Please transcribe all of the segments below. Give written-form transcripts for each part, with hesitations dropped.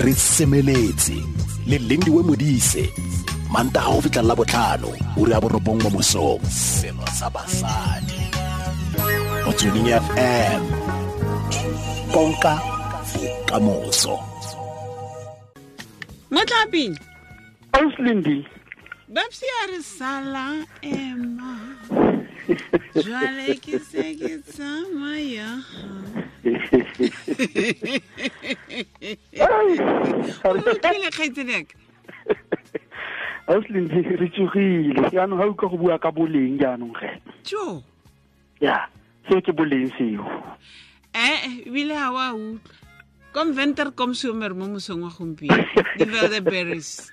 Re semeletse le Lindiwe Modise, Mantaga go fitlha la botlhano, ura ya 9 mo mosong. Selo sa basadi. Motsweding FM. Konka bokamoso. Motlaping. Ausi Lindi. Babsi a re sala ema. Jwale ke se ke tsamaya. O utlwile kgaitsedi yaka? Ausi Lindi, re tsogile. Jaanong ga utlwa go bua ka boleng jaanong ge. Jo. Ya, seo ke boleng seo. Ebile ga wa utlwa. Kom venter kom somer mo mosong wa gompieno. Di berries.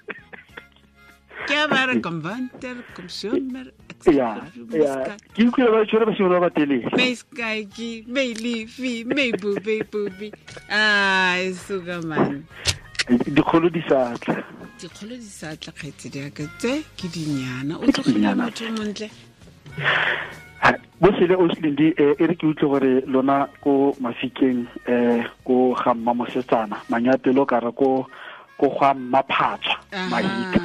Ke a ba re kom venter kom somer. Ya, ya. Ke utlwile ba tshwere basimane ba ba telele. May skyki, may leafy, may booby booby. Ai, suka man. Dikgolo di sa tla. Dikgolo di sa tla kgaitsedi ya ka tse ke dinyana. O tlogile motho o montle. Bo sele Ausi Lindi, e re ke utlwe gore lona ko Mafikeng, ko ga mma mosetsana, manyapelo ka re ko ga mma phatswa, Mahika.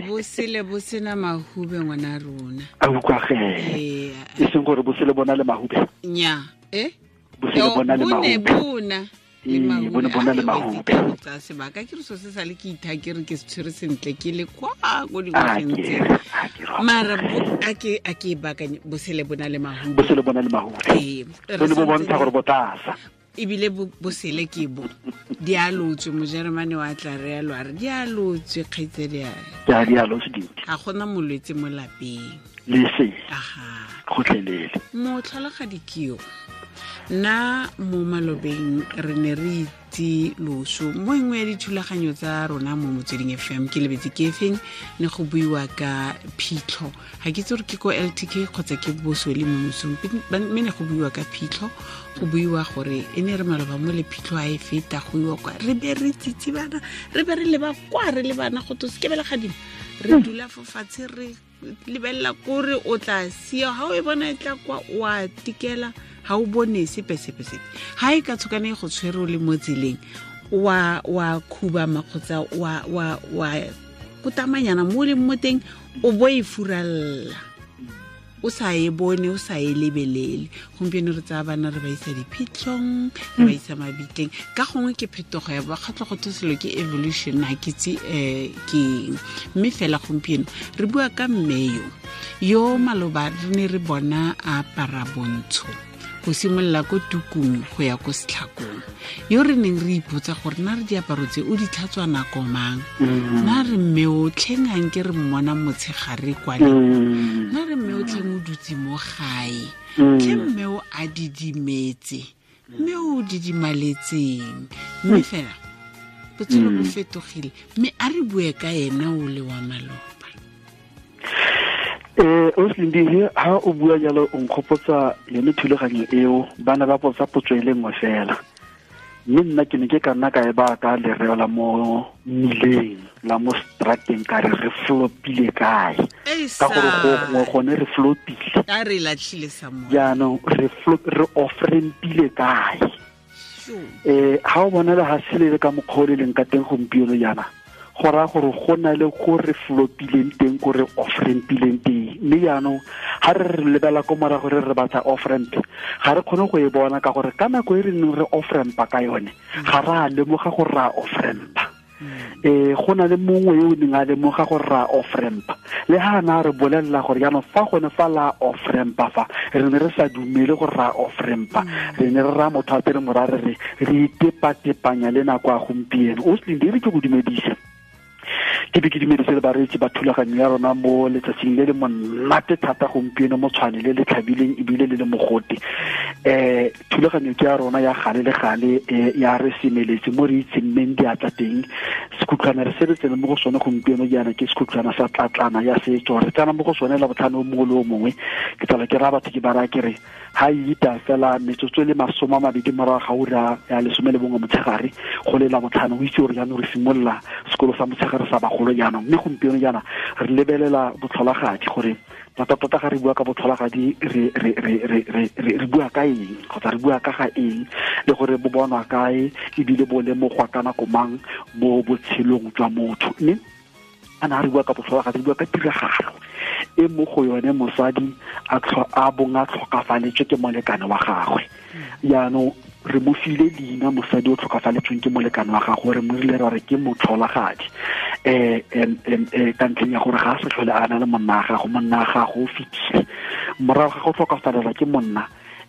Bo sele bo sena mahube ngwana rona. A utlwa ge. E seng gore bo sele bona le mahube. Nya, eh? Bo sele bona le mahube. Bona. Ee, bone bona le mahube. Tsa sebaka ke re so se sale ke itha ke re ke se tshwere sentle ke le kwa ko dingwageng tse. Mara a ke baakanye bo sele bona le mahube. Bo sele bona le mahube. Ee, bone bo bontsha gore bo tlasa. Ebile bo sele ke bo. Di a lotswe, Mojeremane wa tla re a re di a lotswe kgaitsedi ya. Ya di a lotswe dintsi. Ga gona molwetse mo lapeng. Le se. Aha. Gotlhelele. Motlholagadi ke yo. Nna mo malobeng re ne re itse loso mo engwe ya dithulaganyo tsa rona mo Motsweding FM ke lebetse ke efeng ne go buiwa ka phitlho. Ga ke itse gore ke ko LTK kgotsa ke boswele mo mosong, mme ne go buiwa ka phitlho, go buiwa gore e ne re maloba mo le phitlho a e feta go iwa kwa re be re tsitsibana, re be re leba kwa re le bana go to se ke bela gadimo, re dula fo fatshe re lebelela kore o tla sia ha o e bona e tla kwa o a tikela ha o bone sepe sepe sepe. Ha e ka tshokane go tshwere o le mo tseleng wa khubama kgotsa wa kotamanyana mo leng mo teng o bo e furalla o sa e bone o sa e lebelele. Gompieno re tsaya bana re ba isa diphitlhong, re ba isa mabitleng. Ka gongwe ke phetogo ya bakgatlho go selo ke evolution, ha ke itse ke eng. Mme fela gompieno re bua ka mme yo maloba re ne re bona a apara bontsho go simolola ko tukung go ya ko setlhakong, yo re neng re ipotsa gore na re diaparo tse o di tlhatswa nako mang, na re mme o tlheng a nke re mmona motshegare kwa le, na re mme o tlheng o dutse mo gae, tlhe mme o a didimetse, mme o didimaletseng. Mme fela botshelo bo fetogile, mme a re bue ka ena o le wa maloba. Ausi Lindi, ha o bua jalo o nkgopotsa yone thulaganyo eo, bana ba potsa potso e le nngwe fela. Mme nna ke ne ke ka nna ka e baya ka lereo la mo mmileng, la mo strateng, ka re re flopile kae. Ka gore go gongwe gone re flopile. A re latlhile sa moya. Jaanong re off-rampile kae. Ha o bona le ha se le ka mokgwa o le leng ka teng gompieno jaana, go raya gore go na le ko re flopileng teng, ko re off-rampileng teng. Mme jaanong ha re re lebela ko morago re re batla off-ramp, ga re kgone go e bona ka gore ka nako e re neng re off-rampa ka yone, ga re a lemoga gore re a off-rampa. Go na le mongwe yo o neng a lemoga gore re a off-rampa, le ha na re bolelela gore jaanong fa gone fa la off-rampa fa, re ne re sa dumele gore re a off-rampa. Re ne re raya motho a tere mora re re re itepatepanya le nako ya gompieno. Ausi Lindi, e re ke go dumedise. Ke be ke dumedise le bareetsi ba thulaganyo ya rona mo letsatsing le le monate thata gompieno mo Tshwane le le tlhabileng ebile le le mogote. Thulaganyo ke ya rona ya gale le gale, ya re semeletse mo re itseng mmeng diatla teng. Sekhutlwana re se re tsene mo go sone gompieno jaana ke sekhutlwana sa tlatlana ya setso. Re tsena mo go sone la botlhano o mongwe le o mongwe. Ke tsala ke raya batho ke ba raya ke re ha e ita fela metsotso e le 20 morago ga ura ya 11 motshegare go le la botlhano, o itse gore jaanong re simolola Sekolo sa motshegare sa bagolo jaanong. Mme gompieno jaana re lebelela botlholagadi, gore tota-tota ga re bua ka botlholagadi re bua ka eng, kgotsa re bua ka ga eng, le gore bo bonwa kae ebile bo lemogwa ka nako mang mo botshelong jwa motho. Mme a na re bua ka botlholagadi, re bua ka tiragalo e mo go yone mosadi a bong a tlhokafaletswe ke molekane wa gagwe. Jaanong re mo file leina mosadi o tlhokafaletsweng ke molekane wa gagwe, re mo rile ra re ke motlholagadi, ka ntlheng ya gore ga a sa tlhole a na le monna wa gago, monna wa gago o fetile. Morago ga go tlhokafalela ke monna,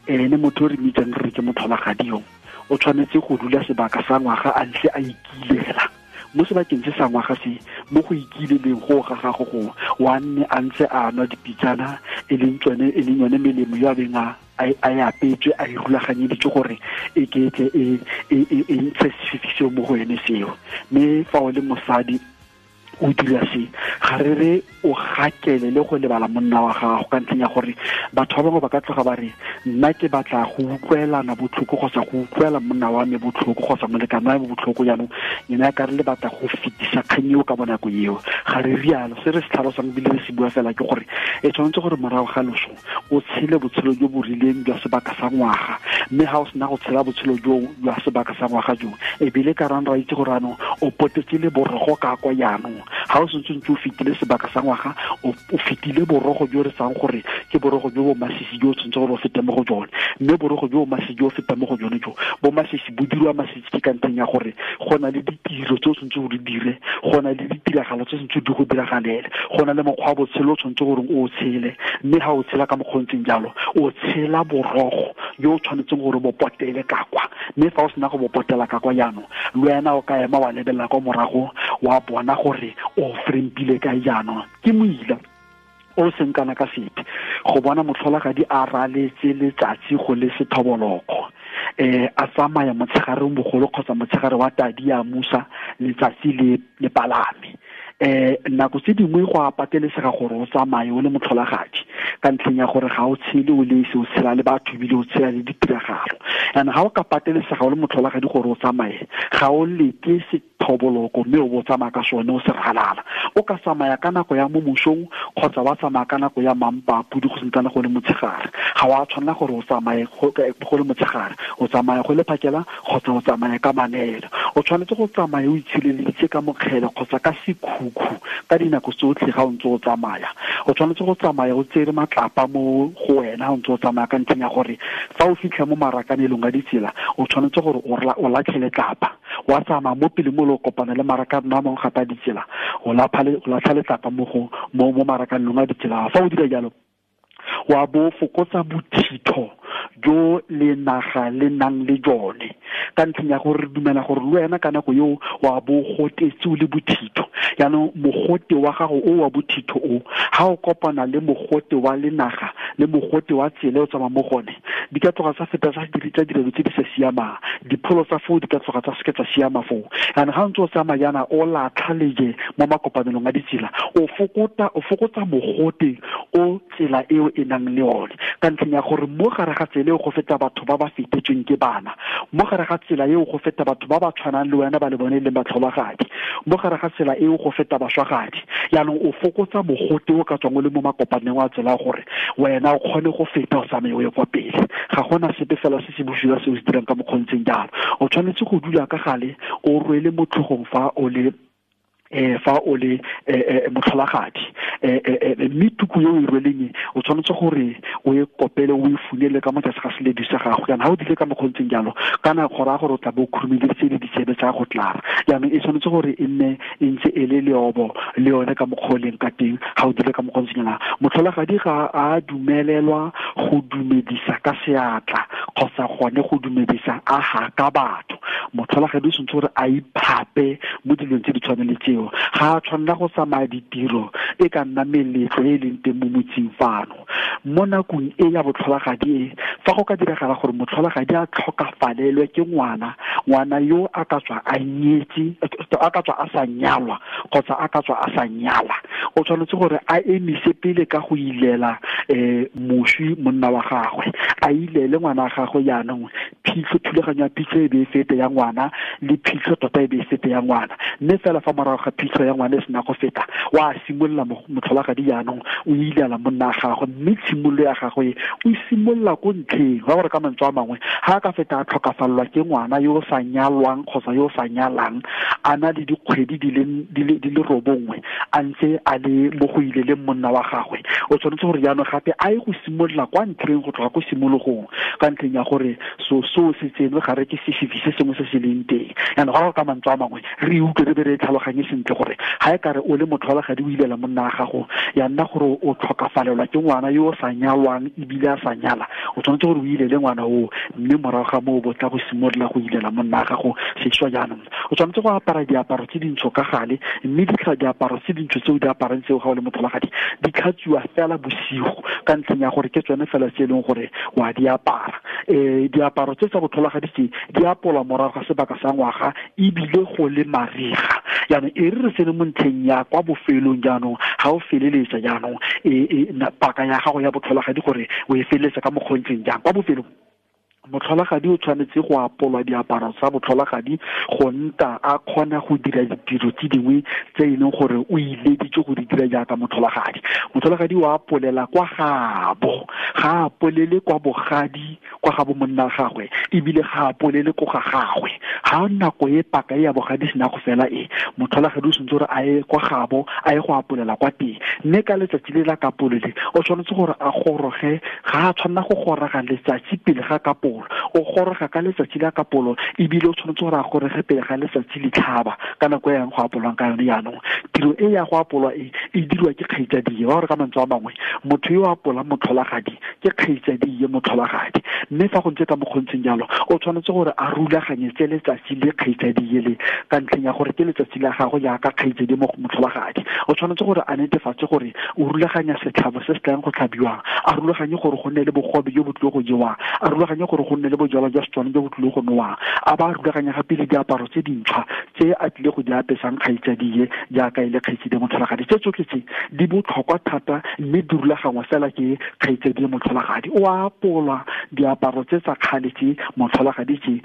ene motho o re mitsang re ke motlholagadi yo o tshwanetse go dula sebaka sa ngwaga a ntse a ikilela. Mo sebakeng se sa ngwaga se, mo go ikileleng go ga gago go wa nne a ntse a nwa dipitsana, e leng yone melemo yo a beng a e apetswe, a e rulaganyeditswe gore e ketle e ntshe sefifi seo mo go ene seo. Mme fa o le mosadi o dira se, ga re re o gakele le go lebala monna wa gago, ka ntlheng ya gore batho ba bangwe ba ka tloga ba re nna ke batla go utlwelana botlhoko kgotsa go utlwela monna wa me botlhoko kgotsa molekane wa me botlhoko, jaanong ena ya ka re le batla go fetisa kgang eo ka bonako eo. Ga re rialo. Se re se tlhalosang ebile re se bua fela ke gore e tshwanetse gore morago ga loso o tshele botshelo jo bo rileng jwa sebaka sa ngwaga, mme ga o sena go tshela botshelo jo jwa sebaka sa ngwaga jo, ebile ka rang ra itse gore anong o potetse le borogo ka kwa jaanong. Ga o sentse ntse o fetile sebaka sa ngwaga, o fetile borogo jo re sang gore ke borogo jo bo masisi jo o tshwanetse gore o fete mo go jone. Mme borogo jo bo masisi jo o feta mo go jone jo bo masisi bo dirwa masisi ke ka ntlheng ya gore go na le ditiro tse o tshwanetse gore dire, go na le ditiragalo tse tshwanetse di go diragalele, go na le mokgwa wa botshelo o tshwanetse gore o tshele. Mme ga o tshela ka mokgwa o ntseng jalo, o tshela borogo jo o tshwanetseng gore bo potele ka kwa. Mme fa o sena go bo potela ka kwa jaanong, le wena o ka ema wa lebelela kwa morago wa bona gore o frempile kae jaanong. Ke moila o seng kana ka sepe go bona motlholagadi a raletse letsatsi go le sethoboloko, a tsamaya motshegareng bogolo kgotsa motshegare wa tadi ya musa letsatsi le palame. Nako tse dingwe go a patelesega gore o tsamaye o le motlholagadi, ka ntlheng ya gore ga o tshele o le esi, o tshela le batho ebile o tshela le ditiragalo. And ga o ka patelesega o le motlholagadi gore o tsamaye, ga o leke sethoboloko mme o bo tsamaya ka sone o se ralala. O ka tsamaya ka nako ya mo mosong kgotsa wa tsamaya ka nako ya mampa pudi go sentsana go le motshegare. Ga wa tshwanela gore o tsamaye go le motshegare, o tsamaya go le phakela kgotsa o tsamaya ka manelo. O tshwanetse go tsamaya o itshireleditse ka mokgele kgotsa ka sekhukhu ka dinako tsotlhe ga o ntse o tsamaya. O tshwanetse go tsamaya o tsere matlapa mo go wena o ntse o tsamaya, ka ntlheng ya gore fa o fitlha mo marakanelong a ditsela, o tshwanetse gore o latlhele tlapa. Wa tsamaya mo pele mo le kopana le marakano a mangwe gape a ditsela, o latlha letlapa mo marakanelong a ditsela. Fa o dira jalo, wa bo fokotsa bothitho jo le naga le nang le jone, ka ntlheng ya gore re dumela gore le wena ka nako eo wa bo gotetse o le bothitho. Jaanong mogote wa gago o wa bothitho o, ga o kopana le mogote wa lenaga le mogote wa tsela o tsamaya mo gone, di ka tloga tsa feta tsa dilo tse di sa siamang, dipholo tsa foo di ka tloga tsa seke tsa siama foo. Jaanong ga o ntse o tsamaya jaana o latlha leje mo makopanelong a ditsela, o fokotsa mogote o tsela eo e nang le one, ka ntlheng ya gore mo gare ga tsela eo go feta batho ba ba fetetsweng ke bana, mo gare ga tsela eo go feta batho ba ba tshwanang le wena ba le bone e leng batlholagadi, mo gare ga tsela eo go feta baswagadi. Jaanong o fokotsa mogote o ka tswang o le mo makopaneng a tsela gore wena o kgone go feta o tsamaye o ye kwa pele. Ga gona sepe fela se se bosula se o se dirang ka mokgontseng jalo. O tshwanetse go dula ka gale o rwele mo tlhogong fa o le motlholagadi, mme tuku yo o e rweleng o tshwanetse gore o e kopele o e funele ka mo tlase ga seledi sa gago. Jaanong ga o dile ka mokgontseng jalo, kana go raya gore o tla bo o khurumeditse le ditsebe tsa go tlara. Jaanong e tshwanetse gore e nne e ntse e le leobo le yone ka mokgwa o leng ka teng. Ga o dile ka mokgontseng jalo, motlholagadi ga a dumelelwa go dumedisa ka seatla kgotsa gone go dumedisa a haka batho. Motlholagadi o tshwanetse gore a iphape mo dilong tse di tshwanang le tseo. Ga a tshwanela go tsamaya ditiro e ka nna meletlo e leng teng mo motseng fano. Mo nakong e ya botlholagadi e, fa go ka diragala gore motlholagadi a tlhokafalelwe ke ngwana, ngwana yo a ka tswa a nyetse, a ka tswa a sa nyalwa kgotsa a ka tswa a sa nyala, o tshwanetse gore a emise pele ka go ilela moswi monna wa gagwe, a ilele ngwana wa gagwe jaanong Phitlho, thulaganyo ya phitlho e be e fete ya ngwana, le phitlho tota e be e fete ya ngwana. Mme fela fa morago ga phitlho ya ngwana e sena go feta, wa simolola motlholagadi jaanong o ilela monna gagwe, mme tshimololo ya gagwe o simolola ko ntlheng. Ba gore ka mantswe a mangwe, ga a ka feta a tlhokafalelwa ke ngwana yo o sa nyalwang kgotsa yo o sa nyalang, a na le dikgwedi di le 9 a ntse a le mo go ileleng monna wa gagwe, o tshwanetse gore jaanong gape a ye go simolola kwa ntlheng, go tloga ko simologong, ka ntlheng ya gore so se tsenwe ga re ke sefifi se sengwe se se leng teng. Jaanong ga go ka mantswe a mangwe re utlwe re be re tlhaloganye sentle gore ga e kare o le motlholagadi o ilela monna wa gago, ya nna gore o tlhokafalelwa ke ngwana yo o sa nyalwang ebile a sa nyala, o tshwanetse gore o ilele ngwana oo, mme morago ga moo bo tla go simolola go ilela monna wa gago sešwa. Jaanong o tshwanetse go apara diaparo tse dintsho ka gale, mme diaparo tse dintsho tse o di aparang tseo ga o le motlholagadi di tlhatswiwa fela bosigo, ka ntlheng ya gore ke tsone fela tse e leng gore wa di apara. Diaparo tse tsa botlholagadi tse di apolwa morago ga sebaka sa ngwaga ebile go le mariga. Jaanong e re tsene mo ntlheng ya kwa bofelong, jaanong ga o feleletsa jaanong paka ya gago ya botlholagadi gore o e feleletsa ka mokgontseng jang. Kwa bofelong motlholagadi o tshwanetse go apolwa diaparo tsa botlholagadi go nta a kgona go dira ditiro tse dingwe tse e leng gore o ileditse go di dira jaaka motlholagadi. Motlholagadi o apolela kwa gabo, ga a apolele kwa bogadi kwa ga bo monna gagwe, ebile ga a apolele ko ga gagwe. Ga nako e paka ya bogadi sena go fela e, motlholagadi o tshwanetse gore a ye kwa gabo, a ye go apolela kwa teng. Mme ka letsatsi le la kapolole o tshwanetse gore a goroge, ga a tshwanela go goroga letsatsi pele ga kapolo, o goroga ka letsatsi la kapolo, ebile o tshwanetse gore a goroge pele ga letsatsi le tlhaba ka nako e yang go apolwang ka yone. Jaanong tiro e ya go apolwa e e dirwa ke kgaitsadie. Wa gore ka mantswe a mangwe, motho yo a apolang motlholagadi ke kgaitsadie motlholagadi. Mme fa go ntse ka mokgontseng jalo, o tshwanetse gore a rulaganyetse letsatsi le kgaitsadie le, ka ntlheng ya gore ke letsatsi la gagwe jaaka kgaitsadi motlholagadi. O tshwanetse gore a netefatse gore o rulaganya setlhabo se se tlang go tlhabiwang, a rulaganye gore go nne le bogobe jo bo tlile go jewang, a rulaganye gore go nne le bojalwa jwa Setswana jo bo tlile go nowang, a ba rulaganya gape le diaparo tse dintšhwa tse a tlile go di apesang kgaitsadie jaaka e le kgaitsadi motlholagadi. Tse tsotlhe tse di botlhokwa thata, mme di rulagangwa fela ke kgaitsadi motlholagadi. O apolwa diaparo tse tsa kgale tse motlholagadi tse,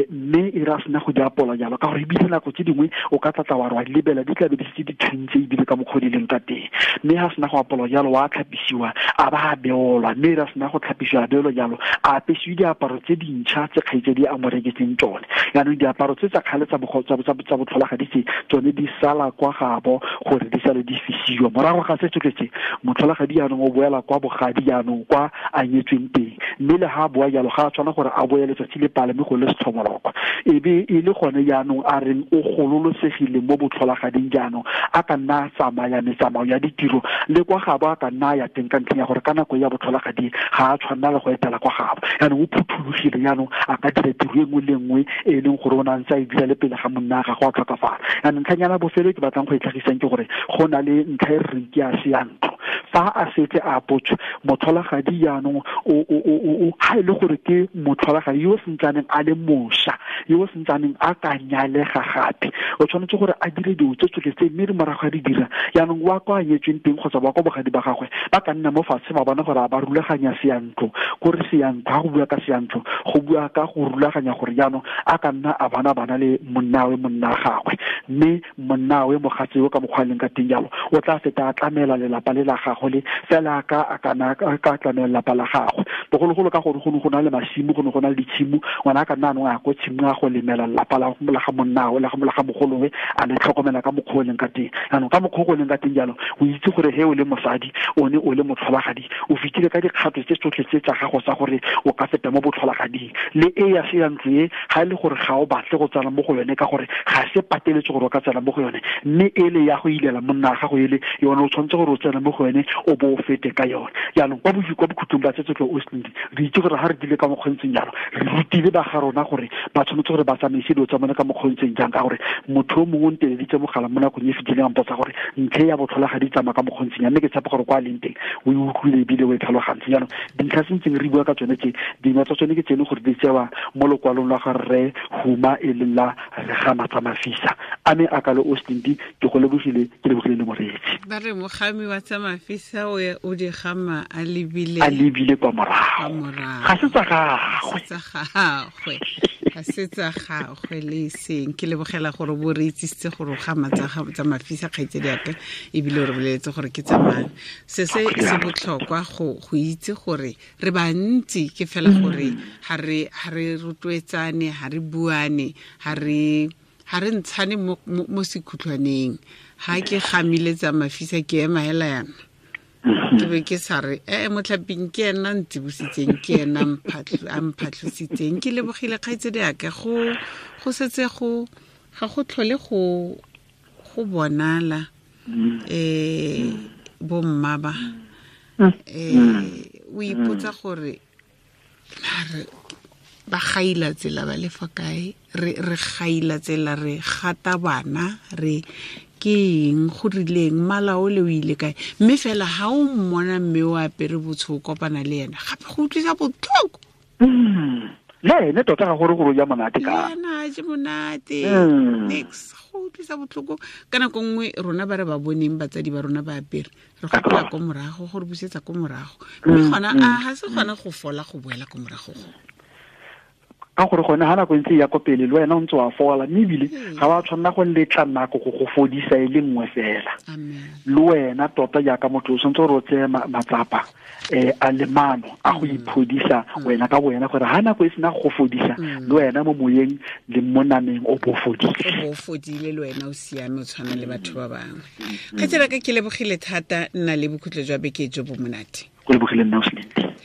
mme e re a sena go di apola jalo, ka gore ebile nako tse dingwe o ka tlatla wa re wa di lebela di tlabe di setse di thuntse ebile ka mokgwa di leng ka teng. Mme ga sena go apolwa jalo, wa tlhapisiwa a ba a beolwa, mme e re a sena go tlhapisiwa a beolwa jalo, a apesiwe diaparo tse dintšha tse kgaitsadi a mo reketseng tsone. Jaanong diaparo tse tsa kgale tsa botlholagadi tse tsone di sala kwa gabo gore di sale di fisiwa. Morago ga se tsotlhe tse, motlholagadi jaanong o boela kwa bogadi jaanong kwa a nyetsweng teng, mme le ga a boa jalo ga a tshwana gore a boe letsatsi le palame go le setlhomolokwa, e be e le gone jaanong a reng o gololosegile mo botlholagading. Jaanong a ka nna a tsamaya metsamao ya ditiro le kwa gabo a ka nna a ya teng, ka ntlheng ya gore ka nako ya botlholagadi ga a tshwanela le go etela kwa gabo. Jaanong o phuthologile, jaanong a ka dira tiro e nngwe le nngwe e leng gore o ne a ntse a e dira le pele ga monna gagwe a tlhokafala. Jaanong ntlhanyana bofelo ke batlang go e tlhagisang ke gore go na le ntlha e re reng ke ya seyantlo. Fa a setse a apotswe motlholagadi jaanong ga e le gore ke motlholagadi yo o sentsaneng a le mošwa, yo o sentsaneng a ka nyalega gape, o tshwanetse gore a dire dilo tse tsotlhe tse, mme re morago ga di dira jaanong wa kwa a nyetsweng teng kgotsa wa kwa bogadi ba gagwe ba ka nna mo fatshe ba bona gore a ba rulaganya seyantlo. Kore seyantlo, ga go bua ka seyantlo, go bua ka go rulaganya gore jaanong a ka nna a bana le monnawe monna gagwe, mme monnawe mogatse yo ka mokgwa a leng ka teng jalo o tla feta a tlamela lelapa le la gagwe le fela ka a tlamela lelapa la gagwe. Bogologolo ka gore go ne go na le masimo, go ne go na le ditshimo, ngwana a ka nna anong a ko tshimo a go lemela lelapa la ga monnawe la ga mogolowe, a le tlhokomela ka mokgwa o leng ka teng. Jaanong ka mokgwa o leng ka teng jalo, o itse gore he o le mosadi, o ne o le motlholagadi, o fetile ka dikgato tse tsotlhe tse tsa gago tsa gore o ka feta mo botlholagading. Le e ya seyantlo e, ga e le gore ga o batle go tsena mo go yone, ka gore ga se pateletse gore o ka tsena mo go yone, mme ele ya go ilela monna wa gago ele yone o tshwanetse gore o tsene mo go yone o bo o fete ka yone. Jaanong kwa bokhutlong ba tse tsotlhe o se re itse gore ga re dile ka mokgontseng jalo, re rutile ba ga rona gore ba tshwanetse gore ba tsamaise dilo tsa bone ka mokgontseng jang, ka gore motho o mongwe o nteleditse mogala mo nakong e fetileng a mpotsa gore ntlha ya botlholagadi tsamaya ka mokgontseng jang, mme ke tshepa gore kwa a leng teng o e utlwile ebile o e tlhalogantse. Jaanong dintlha se ntseng re bua ka tsone tse dingwe tsa tsone ke tsene gore di tsewa mo lokwalong la ga rre Huma e leng la Regamatsa Mafisa. A me a kalo o Slindi, ke go lebogile, ke lebogile le moreetsi. Ba re mogami wa tsa mafisa o di gama a lebile, a lebile kwa morago, ga se tsa gagwe, ga se tsa gagwe le seng. Ke lebogela gore bo re itsisitse gore o gama tsa mafisa, kgaitsedi yaka, ebile o re boleletse gore ke tsa mang. Se se se botlhokwa go itse gore re bantsi, ke fela gore ha re rotloetsane, ha re buane, ha re ntshane mo sekhutlwaneng. Ha ke gamile tsa mafisa ke ema hela yana, ke be ke sa re motlhaping ke ena ntsibositseng, ke ena a mphatlhositseng. Ke lebogile kgaitsedi yaka, go setse go ga go tlhole go bonala bomma ba o ipotsa gore ba gaila tsela ba le fa kae, re gaila tsela, re gata bana, re ke eng go rileng, mmala o le o ile kae. Mme fela ha o mmona mme o apere botsho o kopana le ena, gape go utlwisa botlhoko. Le ene tota ga gore gore o ja monate ka ena, a je monate nix, go utlwisa botlhoko. Ka nako nngwe rona ba re ba boneng batsadi ba rona ba apere, re gopola ko morago, gore busetsa ko morago, mme gona a ga se gona go fola go boela ko morago go. Ka gore gone ha nako ntse ya ko pele le wena o ntse wa fola, mme ebile ga wa tshwanela go letla nako go go fodisa e le nngwe fela. Le wena tota jaaka motho o tshwanetse gore o tseye matsapa a le mano a go iphodisa wena ka wena, gore ha nako e sena go fodisa le wena mo moyeng le mo nameng o bo fodile, o bo fodile le wena o siame, o tshwana le batho ba bangwe. Kgaitsedi ka ke lebogile thata, nna le bokhutlo jwa beke jo bo monate. Go lebogile nna o Slindi.